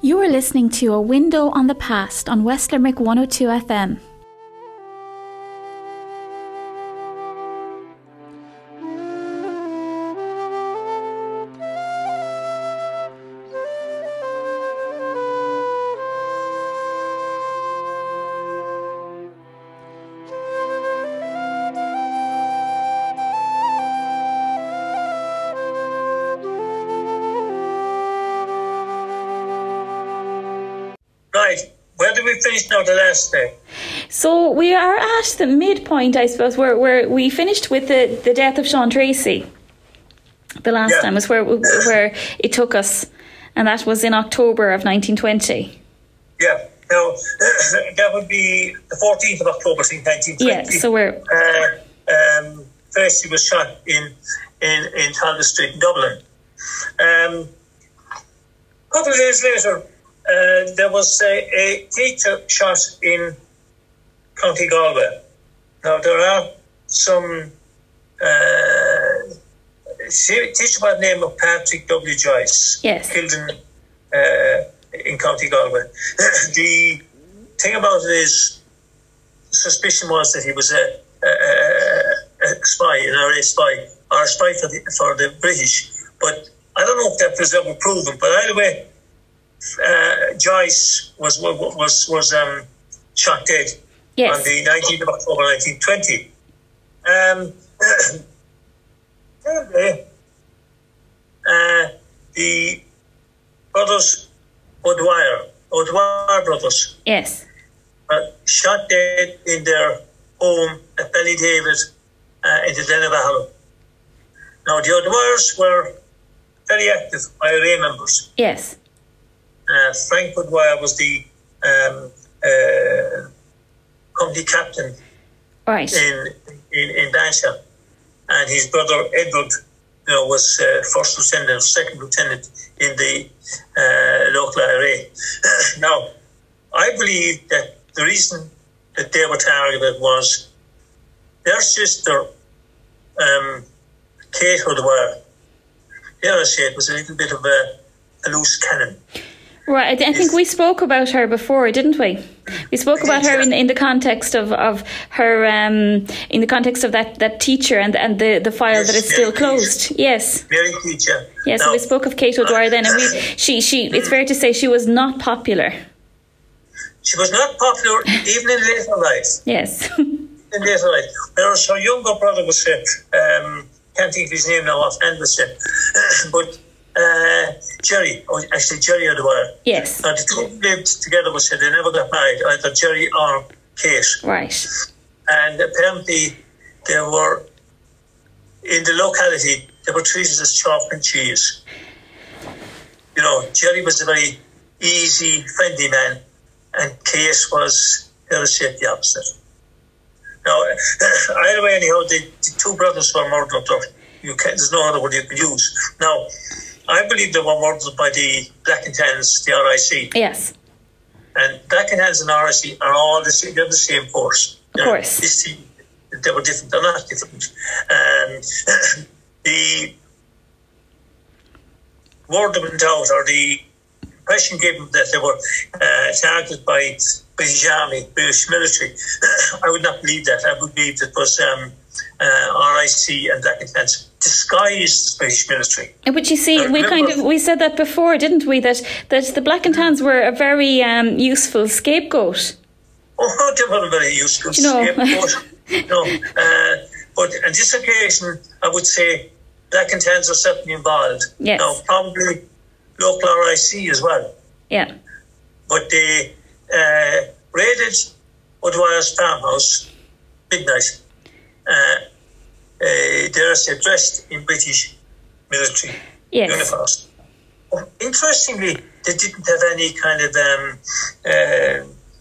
You are listening to A Window on the Past on West Limerick 102 FM. Right, where did we finish now the last day? So we are at the midpoint, I suppose, where we finished with the death of Sean Tracy. The last time was where it took us, and that was in October of 1920. Yeah, now that would be the 14th of October, 1920. Yeah, so we're... Tracy was shot in Talbot Street in Dublin. A couple of days later, there was a teacher shot in County Galway. Now, there are some teacher by the name of Patrick W. Joyce, killed in County Galway. The thing about it is, the suspicion was that he was a spy, an RA spy, or a spy for the British. But I don't know if that was ever proven. But either way, Joyce was shot dead on the 19th of October 1920. The brothers O'Dwyer brothers, shot dead in their home at Ballydavid in the Glenavallen. Now the O'Dwyers were very active IRA members. Yes. Frank O'Dwyer was the company captain in Bansha, and his brother Edward, was first lieutenant, second lieutenant in the local IRA. Now, I believe that the reason that they were targeted was their sister, Kate O'Dwyer. Dare I say, it was a little bit of a loose cannon. Right, I think we spoke about her before, didn't we? We spoke about her in the context of her, in the context of that teacher and the file that is still closed. Yes. Mary teacher. Yes, so we spoke of Kate O'Dwyer then, and she. It's fair to say she was not popular. She was not popular even in later life. Yes. In later life, whereas her younger brother was can't think of his name now offhand, but. Jerry O'Dwyer. Yes. Now, the two lived together, they never got married, either Jerry or Kate. Right. And apparently they were, in the locality, they were treated as chalk and cheese. Jerry was a very easy, friendly man, and Kate was, the opposite. Now, either way, anyhow, the two brothers were murdered. There's no other word you could use. Now, I believe they were murdered by the Black and Tans, the RIC. Yes. And Black and Tans and RIC are all the same. They're the same force. Of course. This team, they were different. They're not different. The word went out, or the impression given that they were targeted by British Army, British military. I would not believe that. I would believe it was RIC and Black and Tans disguised the British military. But you see, we said that before, didn't we? That the Black and Tans were a very useful scapegoat. Oh, they were a very useful scapegoat. But on this occasion, I would say Black and Tans are certainly involved. Yes. Now, probably local RIC as well. Yeah. But they raided O'Dwyer's farmhouse midnight. They're dressed in British military uniforms. Interestingly, they didn't have any kind of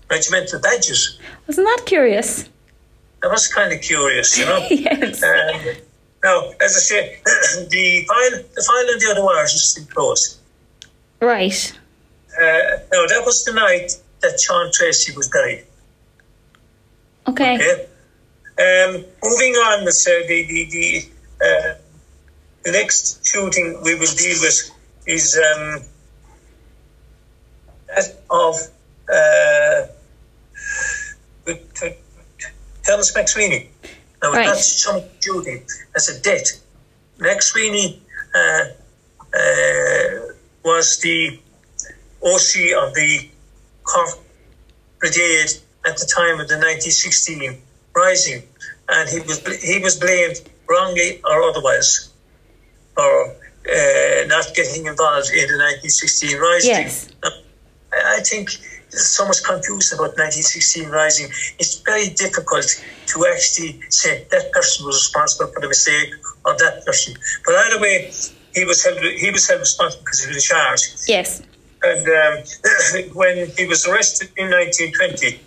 regimental badges. Wasn't that curious? That was kind of curious, Yes. Now, as I say, the file on the O'Dwyers is still closed. Right. Now, that was the night that Sean Tracy was buried. Okay. Moving on, the next shooting we will deal with is That of Thomas McSweeney. Now, it's not some duty, as a debt. McSweeney was the OC of the Cork Brigade at the time of the 1916 Rising, and he was blamed wrongly or otherwise for not getting involved in the 1916 Rising. Yes. I think there's so much confusion about 1916 Rising. It's very difficult to actually say that person was responsible for the mistake or that person. But either way, he was held responsible because he was charged. Yes. And when he was arrested in 1920,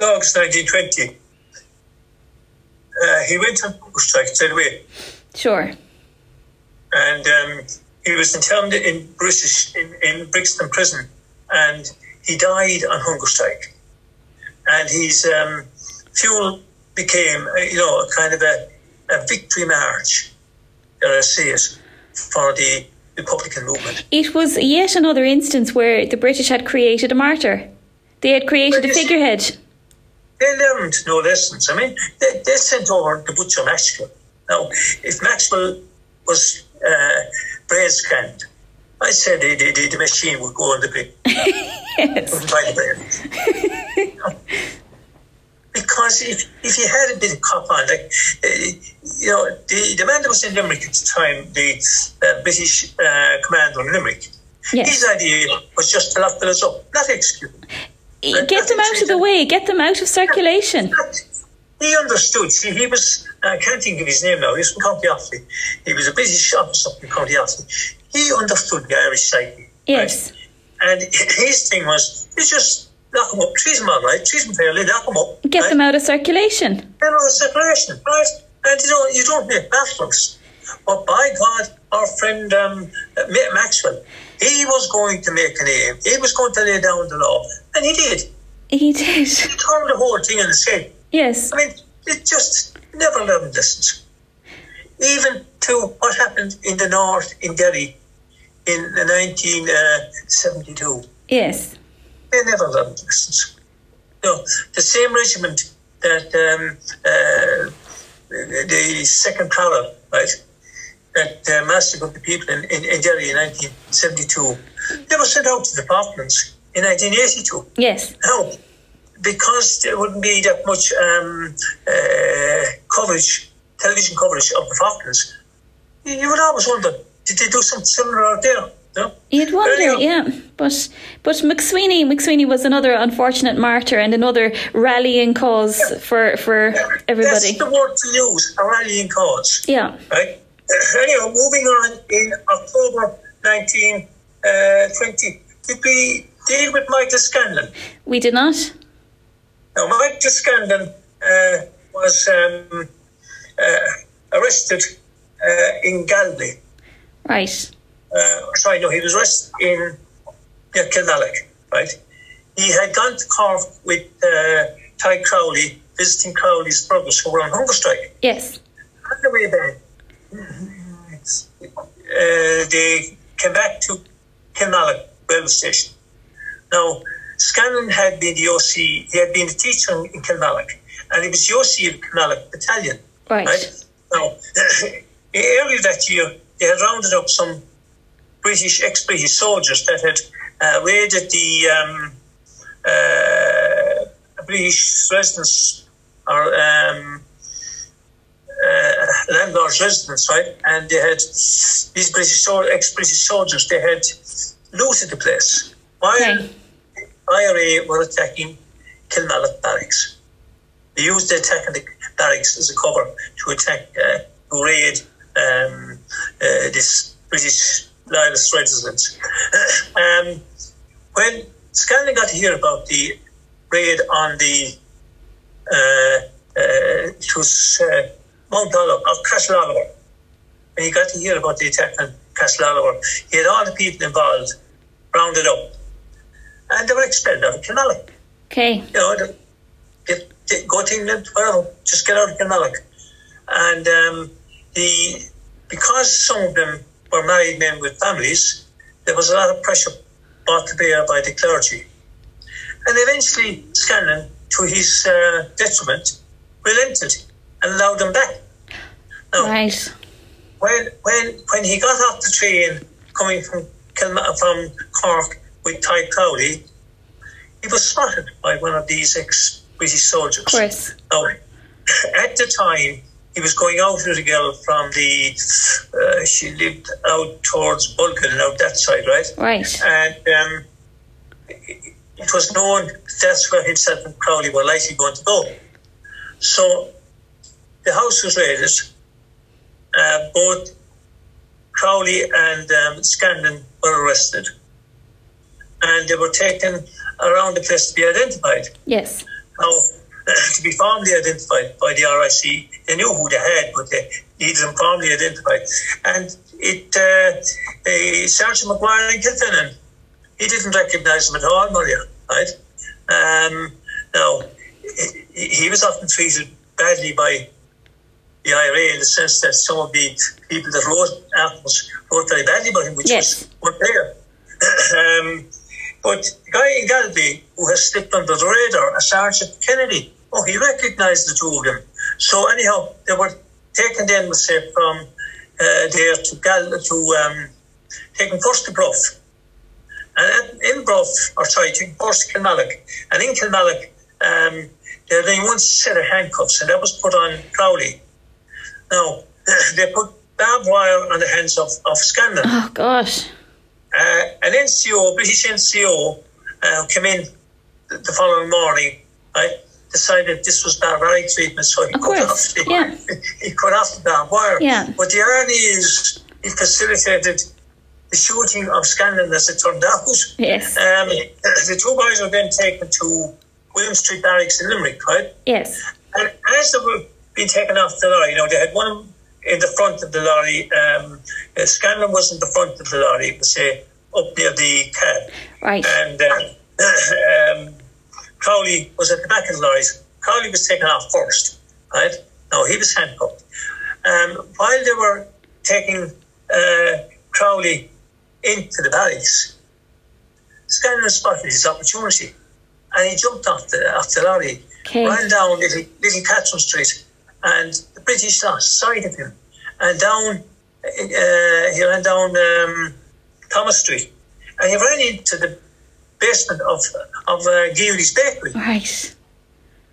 August 1920, he went on hunger strike straight away. Sure. And he was interned in Brixton prison, and he died on hunger strike. And his funeral became, a kind of a victory march, dare I say it, for the Republican movement. It was yet another instance where the British had created a martyr. They had created a figurehead. They learned no lessons. I mean, they sent over the butcher Maxwell. Now, if Maxwell was Braid's friend, I said the machine would go on the bin. Yes. Wouldn't buy the bread. Because if you had a bit of cop on, the man that was in Limerick at the time, the British commander in Limerick, yes. His idea was just to lock the fellas up, not execute them. Get them out of the way, get them out of circulation. He understood. See, he was, I can't think of his name now, he was from County Offaly. He was a British officer from County Offaly. He understood the Irish psyche. Yes. Right? And his thing was, you just lock them up, treat them all right, treat them fairly, lock them up. Get them out of circulation. Get them out of circulation, right? And you don't make battlers. But by God, our friend Maxwell, he was going to make a name. He was going to lay down the law. And he did. He did. He turned the whole thing on its head. Yes. I mean, it just never learned lessons. Even to what happened in the north in Derry in 1972. Yes. They never learned lessons. No, the same regiment that the second Prowler, right, that massacred the people in Derry in 1972, they were sent out to the Falklands in 1982. Yes. Now, because there wouldn't be that much television coverage of the Falklands, you would always wonder, did they do something similar out there? No? You'd wonder, yeah. But McSweeney was another unfortunate martyr and another rallying cause for everybody. That's the word to use, a rallying cause. Yeah. Right? Anyhow, moving on, in October 1920, did we deal with Michael Scanlon? We did not. Now, Michael Scanlon was arrested in Galway. Right. He was arrested in Kilmallock, right? He had gone to Cork with Ty Crowley, visiting Crowley's brothers who were on hunger strike. Yes. On the way back, they came back to Kilmallock railway station. Now, Scanlon had been the OC, he had been a teacher in Kilmallock, and he was the OC of the Kilmallock Battalion. Right. Now, earlier that year, they had rounded up some ex-British soldiers that had raided the British residence or landlord's residence, right? And they had these ex-British soldiers, they had looted the place while IRA were attacking Kilmallock barracks. They used the attack on the barracks as a cover to attack, to raid this British loyalist residents. When Scanlon got to hear about the raid on the Mount Oliver, of Castle Oliver, when he got to hear about the attack on Castle Oliver, he had all the people involved rounded up, and they were expelled out of Kilmallock. Okay. They go to England, whatever, just get out of Kilmallock. And because some of them were married men with families, there was a lot of pressure brought to bear by the clergy. And eventually Scanlon, to his detriment, relented and allowed them back. Now, right. When he got off the train coming from Cork with Ty Crowley, he was spotted by one of these ex-British soldiers. Of course. Now, at the time, he was going out with a girl from she lived out towards Bulkin, out that side, right? Right. And it was known that's where himself and Crowley were likely going to go. So the house was raided. Both Crowley and Scanlon were arrested. And they were taken around the place to be identified. Yes. Now, to be formally identified by the RIC, they knew who they had, but they needed them formally identified. And Sergeant McGuire in Kilfinnan, he didn't recognise them at all, Maria, right? Now, he was often treated badly by the IRA in the sense that some of the people that wrote articles wrote very badly about him, which was unfair. But the guy in Galway who has slipped under the radar, Sergeant Kennedy, he recognised the two of them. So anyhow, they were taken then, let's say, from there to taken first to Bruff. And in Bruff, taken first to Kilmallock. And in Kilmallock, they had only one set of handcuffs, and that was put on Crowley. Now, they put barbed wire on the hands of Scanlon. Oh, gosh. An NCO, British NCO, came in the following morning, right, decided this was barbaric treatment, so he cut off the barbed wire. Yeah. But the irony is he facilitated the shooting of Scanlon, as it turned out. Yes. The two guys were then taken to William Street Barracks in Limerick, right? Yes. And as they were being taken off the lorry, they had one in the front of the lorry. Scanlon was in the front of the lorry, it was up near the cab. Right. And Crowley was at the back of the lorry. Crowley was taken off first, right? Now, he was handcuffed. While they were taking Crowley into the barracks, Scanlon spotted his opportunity, and he jumped off the lorry, ran down Little Catherine Street, and the British lost sight of him. And he ran down Thomas Street, and he ran into the basement of Geary's bakery. Right.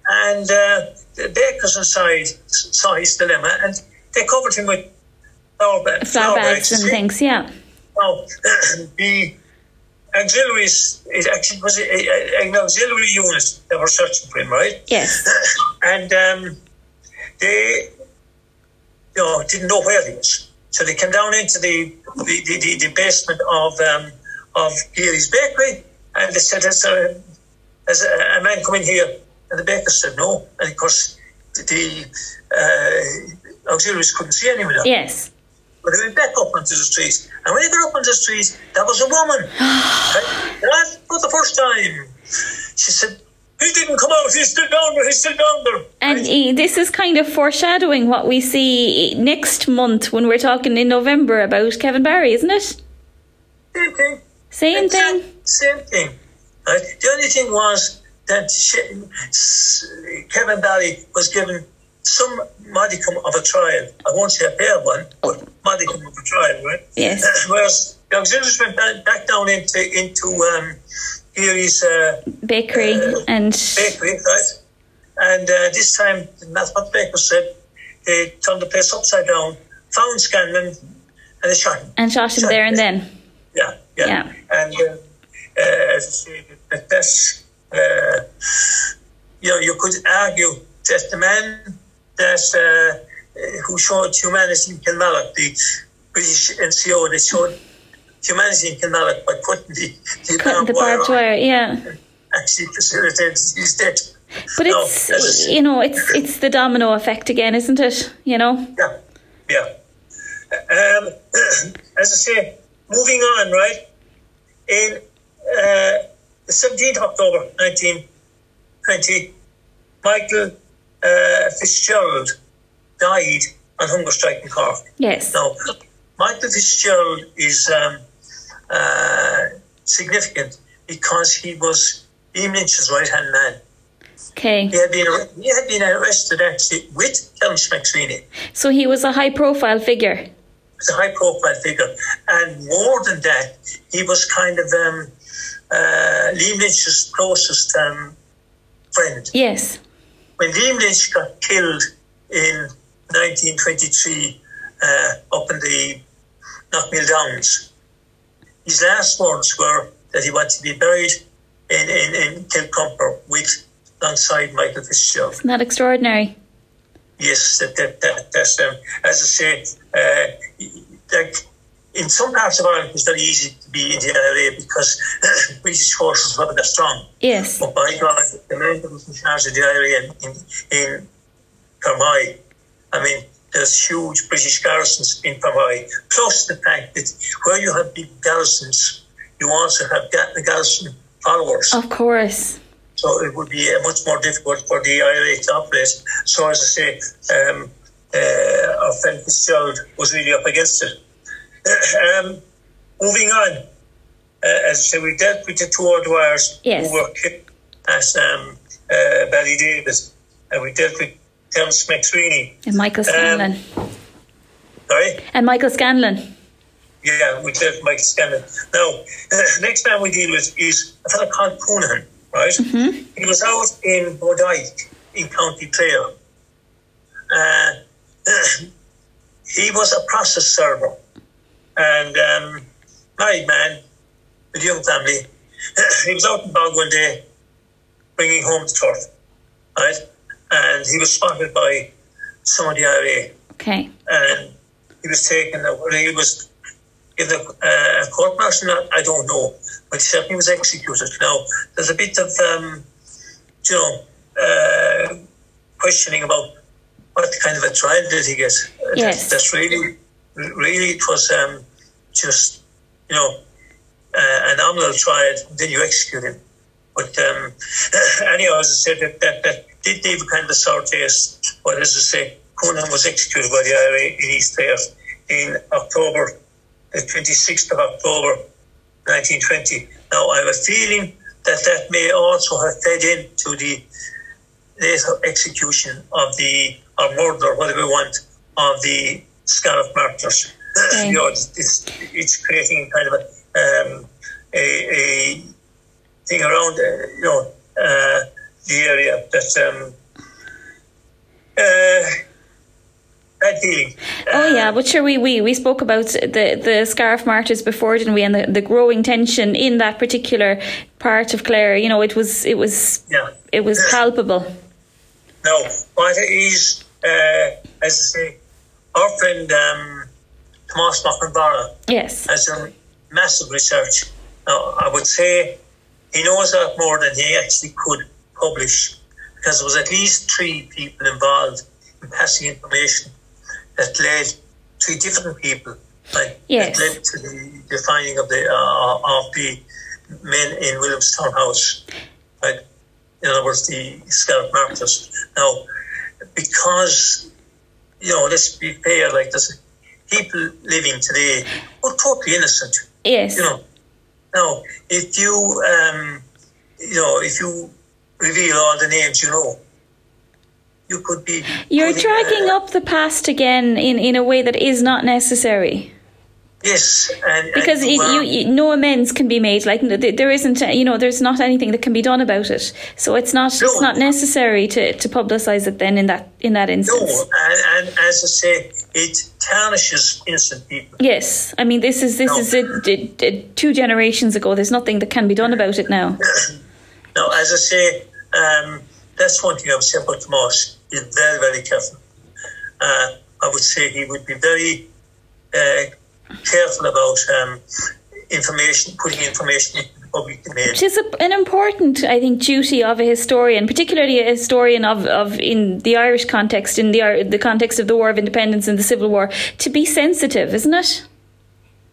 And the bakers inside saw his dilemma, and they covered him with flour bags and things, yeah. Now, the auxiliaries, it actually was an auxiliary unit that were searching for him, right? Yes. And they didn't know where he was. So they came down into the basement of Geary's bakery, and they said, has a man come in here? And the baker said no. And of course, the auxiliaries couldn't see anyone. Yes. But they went back up onto the street. And when they got up onto the street, there was a woman. Right? For the first time. She said, he didn't come out, he's still down there. And this is kind of foreshadowing what we see next month when we're talking in November about Kevin Barry, isn't it? Same thing. Right? The only thing was that Kevin Barry was given some modicum of a trial. I won't say a fair one, but modicum of a trial, right? Yes. Whereas the auxiliaries went back down into Geary's bakery, right? And this time, that's what the baker said. They turned the place upside down, found Scanlon, and they shot him. And shot him there and then. Yeah. And as I say, that's you could argue that the man that who showed humanity in Kilmallock, the British NCO, they showed humanity in Kilmallock by putting the barbed wire, actually facilitated his death. But it's the domino effect again, isn't it? Yeah. As I say, moving on, right? In the 17th of October 1920, Michael Fitzgerald died on hunger strike in Cork. Yes. Now, Michael Fitzgerald is significant because he was Liam Lynch's right-hand man. Okay. He had been arrested actually with Thomas McSweeney. So he was a high-profile figure. He was a high-profile figure. And more than that, he was kind of Liam Lynch's closest friend. Yes. When Liam Lynch got killed in 1923 up in the Knockmill Downs, his last words were that he wanted to be buried in Kilcumper alongside Michael Fitzgerald. Isn't that extraordinary? Yes, that's as I say, like in some parts of Ireland, it's very easy to be in the IRA because British forces were that strong. Yes. But by God, the man that was in charge of the IRA in Fermoy, I mean, there's huge British garrisons in Fermoy, plus the fact that where you have big garrisons, you also have the garrison followers. Of course. So it would be much more difficult for the IRA to operate. So as I say, our friend Fitzgerald was really up against it. Moving on, as I say, we dealt with the two O'Dwyers who were killed at Ballydavid, and we dealt with Thomas McSweeney. And Michael Scanlon. Sorry? And Michael Scanlon. Yeah, we dealt with Michael Scanlon. Now, the next man we deal with is a fellow called Coonahan, right? Mm-hmm. He was out in Bodyke in County Clare. He was a process server and married man with a young family. He was out in Bog one day bringing home the turf, right? And he was spotted by some of the IRA. Okay. And he was taken, he was given a court martial, I don't know, but he certainly was executed. Now, there's a bit of, questioning about what kind of a trial did he get. Yes. That's really, it was just, a nominal trial, then you execute him. But anyhow, as I said, that did leave a kind of a sour taste. But as I say, Coonahan was executed by the IRA in East Clare in October, the 26th of October, 1920. Now, I have a feeling that may also have fed into the later execution of or murder, whatever we want, of the Scariff martyrs. Okay. It's creating kind of a thing around, the area that bad feeling. Oh yeah, but sure, we spoke about the Scariff martyrs before, didn't we? And the growing tension in that particular part of Clare. It was palpable. No, what is, as I say, our friend Tomás McNamara has done massive research. Now, I would say he knows a lot more than he actually could publish, because there was at least 3 people involved in passing information that led 3 different people, that led to the finding of the men in Williamstown House, right? In other words, the Scariff martyrs. Now, because, let's be fair, like there's people living today who are totally innocent. Yes. Now, if you, if you reveal all the names you could be... You're dragging up the past again in a way that is not necessary. Yes. Because no amends can be made. Like, there isn't, there's not anything that can be done about it. So it's not necessary to publicise it then in that instance. No, and as I say, it tarnishes innocent people. Yes. I mean, this is 2 generations ago. There's nothing that can be done about it now. No, as I say, that's one thing I would say about Tomás. He's very, very careful. I would say he would be very careful about putting information into the public domain. Which is an important, I think, duty of a historian, particularly a historian of in the Irish context, in the context of the War of Independence and the Civil War, to be sensitive, isn't it?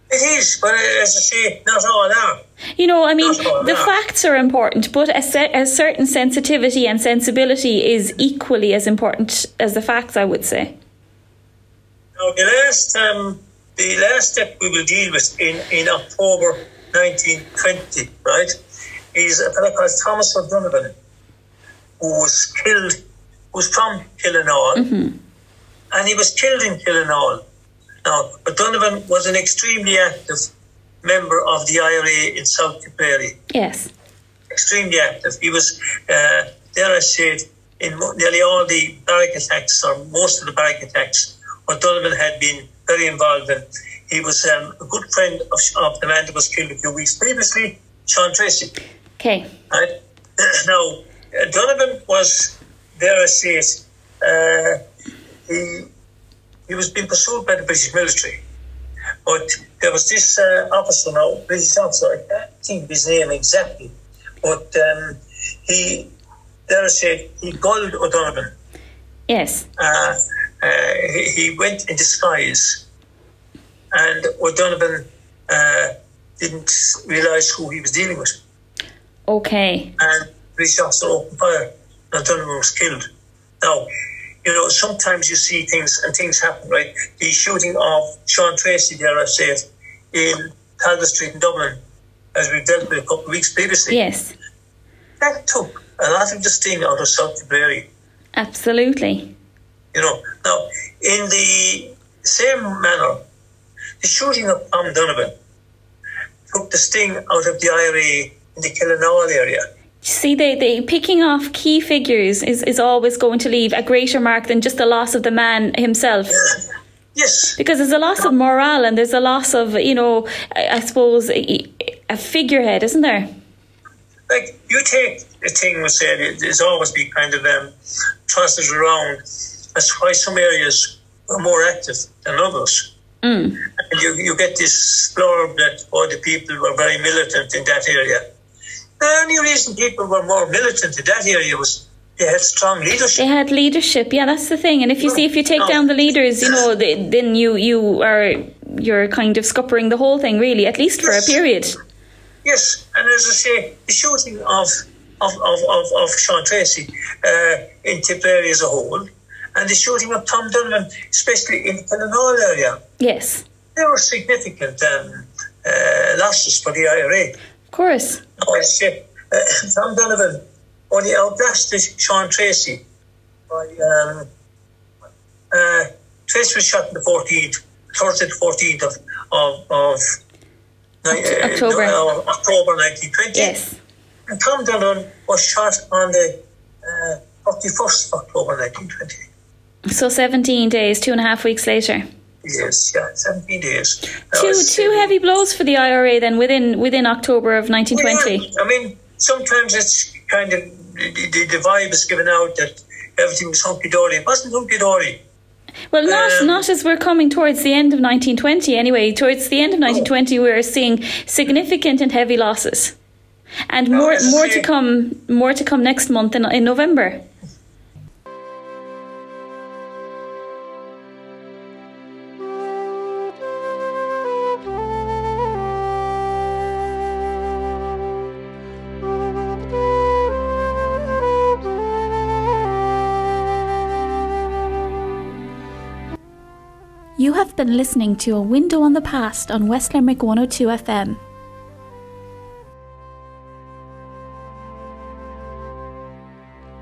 It is, but as I say, not all are. The facts are important, but a certain sensitivity and sensibility is equally as important as the facts, I would say. Now, the last step we will deal with in October 1920, right, is a fellow called Thomas O'Donovan, who was killed, who's from Killinall, and he was killed in Killinall. Now, O'Donovan was an extremely active member of the IRA in South Tipperary. Yes. Extremely active. He was, dare I say it, in nearly all the barrack attacks, or most of the barrack attacks, O'Donovan had been very involved in. He was a good friend of the man that was killed a few weeks previously, Sean Tracy. Okay. Right? Now, O'Donovan was, dare I say it, he was being pursued by the British military. But there was this officer now, British officer, I can't think of his name exactly, but he, dare I say, he gulled O'Donovan. Yes. He went in disguise, and O'Donovan didn't realise who he was dealing with. Okay. And the British officer opened fire, and O'Donovan was killed. Now, you know, sometimes you see things and things happen, right? The shooting of Sean Tracy, dare I say it, in Calder Street in Dublin, as we dealt with a couple of weeks previously. Yes. That took a lot of the sting out of South Tipperary. Absolutely. You know, now, in the same manner, the shooting of Tom Donovan took the sting out of the IRA in the Killinall area. See, they picking off key figures is always going to leave a greater mark than just the loss of the man himself. Yes. Because there's a loss of morale, and there's a loss of, you know, I suppose, a figurehead, isn't there? Like, you take a thing we said, there's always been kind of tossed around as why some areas are more active than others. And you get this blurb that all the people were very militant in that area. The only reason people were more militant in that area was they had strong leadership. They had leadership, yeah, that's the thing. And if you take down the leaders, you know, then you're kind of scuppering the whole thing, really, at least for a period. Yes, and as I say, the shooting of Sean Tracy in Tipperary as a whole, and the shooting of Tom Donovan, especially in the Killinall area. Yes. They were significant losses for the IRA. Of course. Tom Donovan only outlasted Sean Tracy by Tracy was shot on the 14th, Thursday the 14th of October 1920. Yes. And Tom Donovan was shot on the 31st of October 1920. So 17 days, 2.5 weeks later. Yes, yeah, 17 days. Two heavy blows for the IRA then within October of 1920. Well, I mean, sometimes it's kind of the vibe is given out that everything was hunky-dory. It wasn't hunky-dory. Well, not as we're coming towards the end of 1920 anyway. Towards the end of 1920 we're seeing significant and heavy losses. And more to come next month in November. You have been listening to A Window on the Past on West Limerick 102 FM.